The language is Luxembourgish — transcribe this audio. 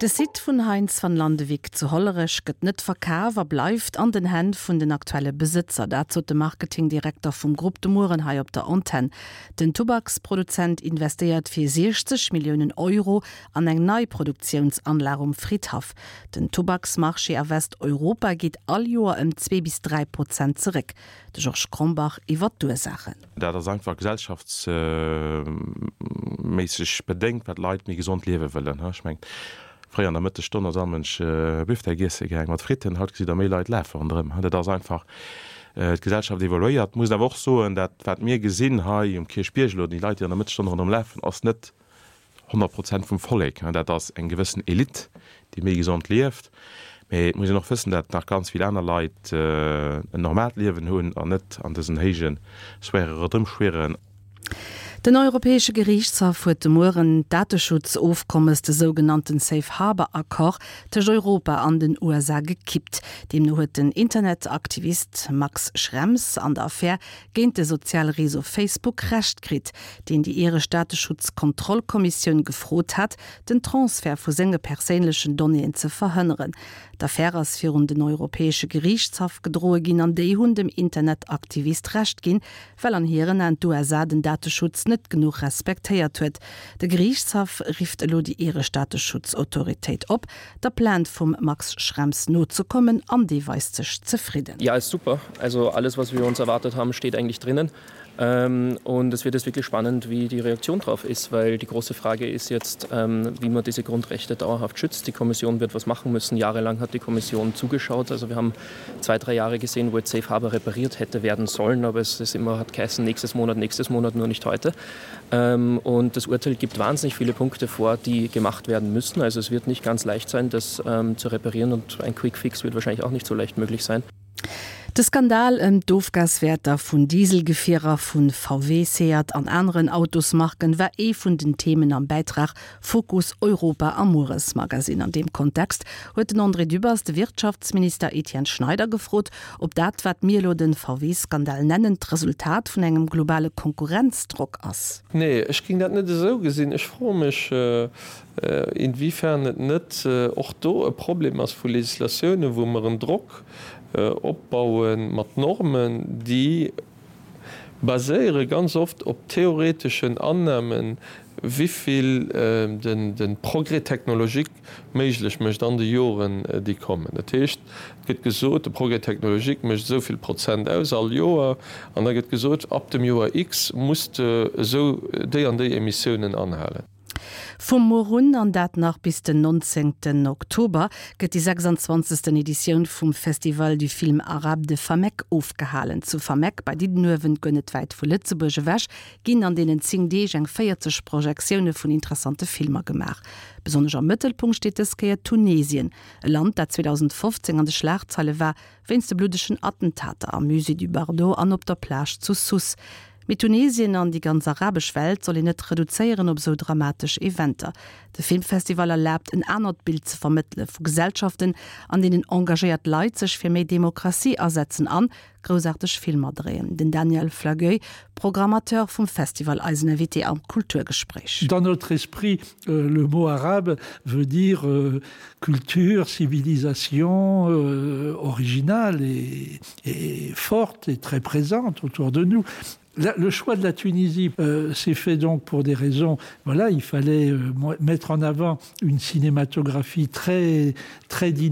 De Site vun Heintz van Landewyck zu Hollerech gëtt net verkaf a bleift an den Hänn vun den aktuelle Besëtzer. Dat sot de Marketingdirekter vum Grupp de Mueren hei op der Antenn. Den Tubaksproduzent investéiert fir 60 Milliounen Euro an eng nei Produktiounsanlag um Fridhaff. Den Tubaksmarché a Westeuropa geet all Joer ëm 2 bis 3 Prozent zeréck. De Georges Krombach iwwer d'Ursaachen. Dat ass einfach gesellschaftsméisseg bedéngt, well d'Leit méi gesond liewe wëllen. Ech mengen, fréier an der Mëttesstonn ass all Mënsch Büftek iesse gaang mat Fritten, haut gesitt Der méi Leit lafe ronderëm. Dat ass einfach, d'Gesellschaft evoluéiert. Muss awer och soen, dat wat mir gesinn hei um Kierchbierg elo, déi Leit, déi an der Mëttesstonn ronderëm lafen, ass net 100 Prozent vum Vollek. Dat ass eng gewëssen Elite, déi méi gesond lieft. Mee et muss een och wëssen, dat nach ganz vill aner Leit en normaalt Liewen hunn an net an dësen héije Sphäre ronderëmschwieren. Den Europäesche Geriichtshaff huet de Mueren d'Dateschutzofkommes, de sougenannten Safe Harbour Accord, tëscht Europa an den USA gekippt. Deemno huet den Internetaktivist Max Schrems an der Affär géint de soziale Réseau Facebook Recht kritt, deen déi iresch Dateschutzkontrollkommissioun gefrot hat, den Transfert vu senge perséinlechen Donnéeën ze verhënneren. D'Affär ass virun den Europäesche Geriichtshaff gedroe ginn an déi hunn dem Internetaktivist Recht ginn, well an hiren Aen d'USA den Dateschutz net genuch respektéiert huet. De Geriichtshaff rifft elo déi iresch Dateschutzautoritéit op, der Plainte vum Max Schrems nozekommen an dee weist sech zefridden. Ja, ist super. Also alles, was wir uns erwartet haben, steht eigentlich drinnen. Ähm, und es wird jetzt wirklich spannend, wie die Reaktion darauf ist, weil die große Frage ist jetzt, ähm, wie man diese Grundrechte dauerhaft schützt. Die Kommission wird was machen müssen. Jahrelang hat die Kommission zugeschaut. Also wir haben zwei, drei Jahre gesehen, wo jetzt Safe Harbor repariert hätte werden sollen, aber es ist immer hat geheißen, nächstes Monat, nächstes Monat, nur nicht heute. Ähm, und das Urteil gibt wahnsinnig viele Punkte vor, die gemacht werden müssen. Also es wird nicht ganz leicht sein, das ähm, zu reparieren und ein Quickfix wird wahrscheinlich auch nicht so leicht möglich sein. De Skandal ëm d'Ofgaswäerter vun Dieselgefierer vu VW, Seat an aneren Autosmarken war ee vun den Themen am Bäitrag Fokus Europa am Mueresmagazin. An deem Kontext huet den André Dübbers de Wirtschaftsminister Etienne Schneider gefrot, ob dat, wat mir elo de VW-Skandal nennen, d'Resultat vun engem globale Konkurrenzdrock ass. Nee, ech géing dat net esou gesinn. Ech froe mech, inwiefern et net och do e Problem ass vu Législatiounen, wou mer en Drock opbaue mat Normen, déi baséiere ganz oft op theoreteschen Annahmen, wivill de Progrès technologique méiglech mécht an de Joren, déi kommen. Dat heescht, et gëtt gesot, de Progrès technologique mécht esou vill Prozent aus all Joer, an da gëtt gesot, ab dem Joer X muss de esou déi an déi Emissiounen anhalen. Vum Muer un, an dat nach bis den 19 Oktober, gëtt déi 26. Editioun vum Festival du Film Arabe de Fameck ofgehalen. Zu Fameck bei Diddenuewen, guer net wäit vu Lëtzebuerg ewech, ginn an deenen 10 Deeg eng 40 Projektioune vun interessante Filmer gemaach. Besonnesch am Mëttelpunkt steet dës Kéier Tunesien, e Land, dat 2015 an de Schlagzeile war wéinst de bluddegen Attentater am Musée du Bardo an op der Plage zu Sousse. Mee Tunesien an déi ganz arabesch Welt soll een net reduzéieren op esou dramatesch Eventer. De Filmfestival erlaabt en anert Bild ze vermëttele vu Gesellschaften, an deenen engagéiert Leit sech fir méi Demokratie asetzen an groussaarteg Filmer dréien. Den Daniel Flagueuil, Programmateur vum Festival, eisen Invité am Kulturgespréich. Dans notre esprit, le mot arabe veut dire culture, civilisation originale et et forte et très présente autour de nous. La, le choix de la Tunisie euh, s'est fait donc pour des raisons voilà il fallait euh, mettre en avant une cinématographie très très dynamique.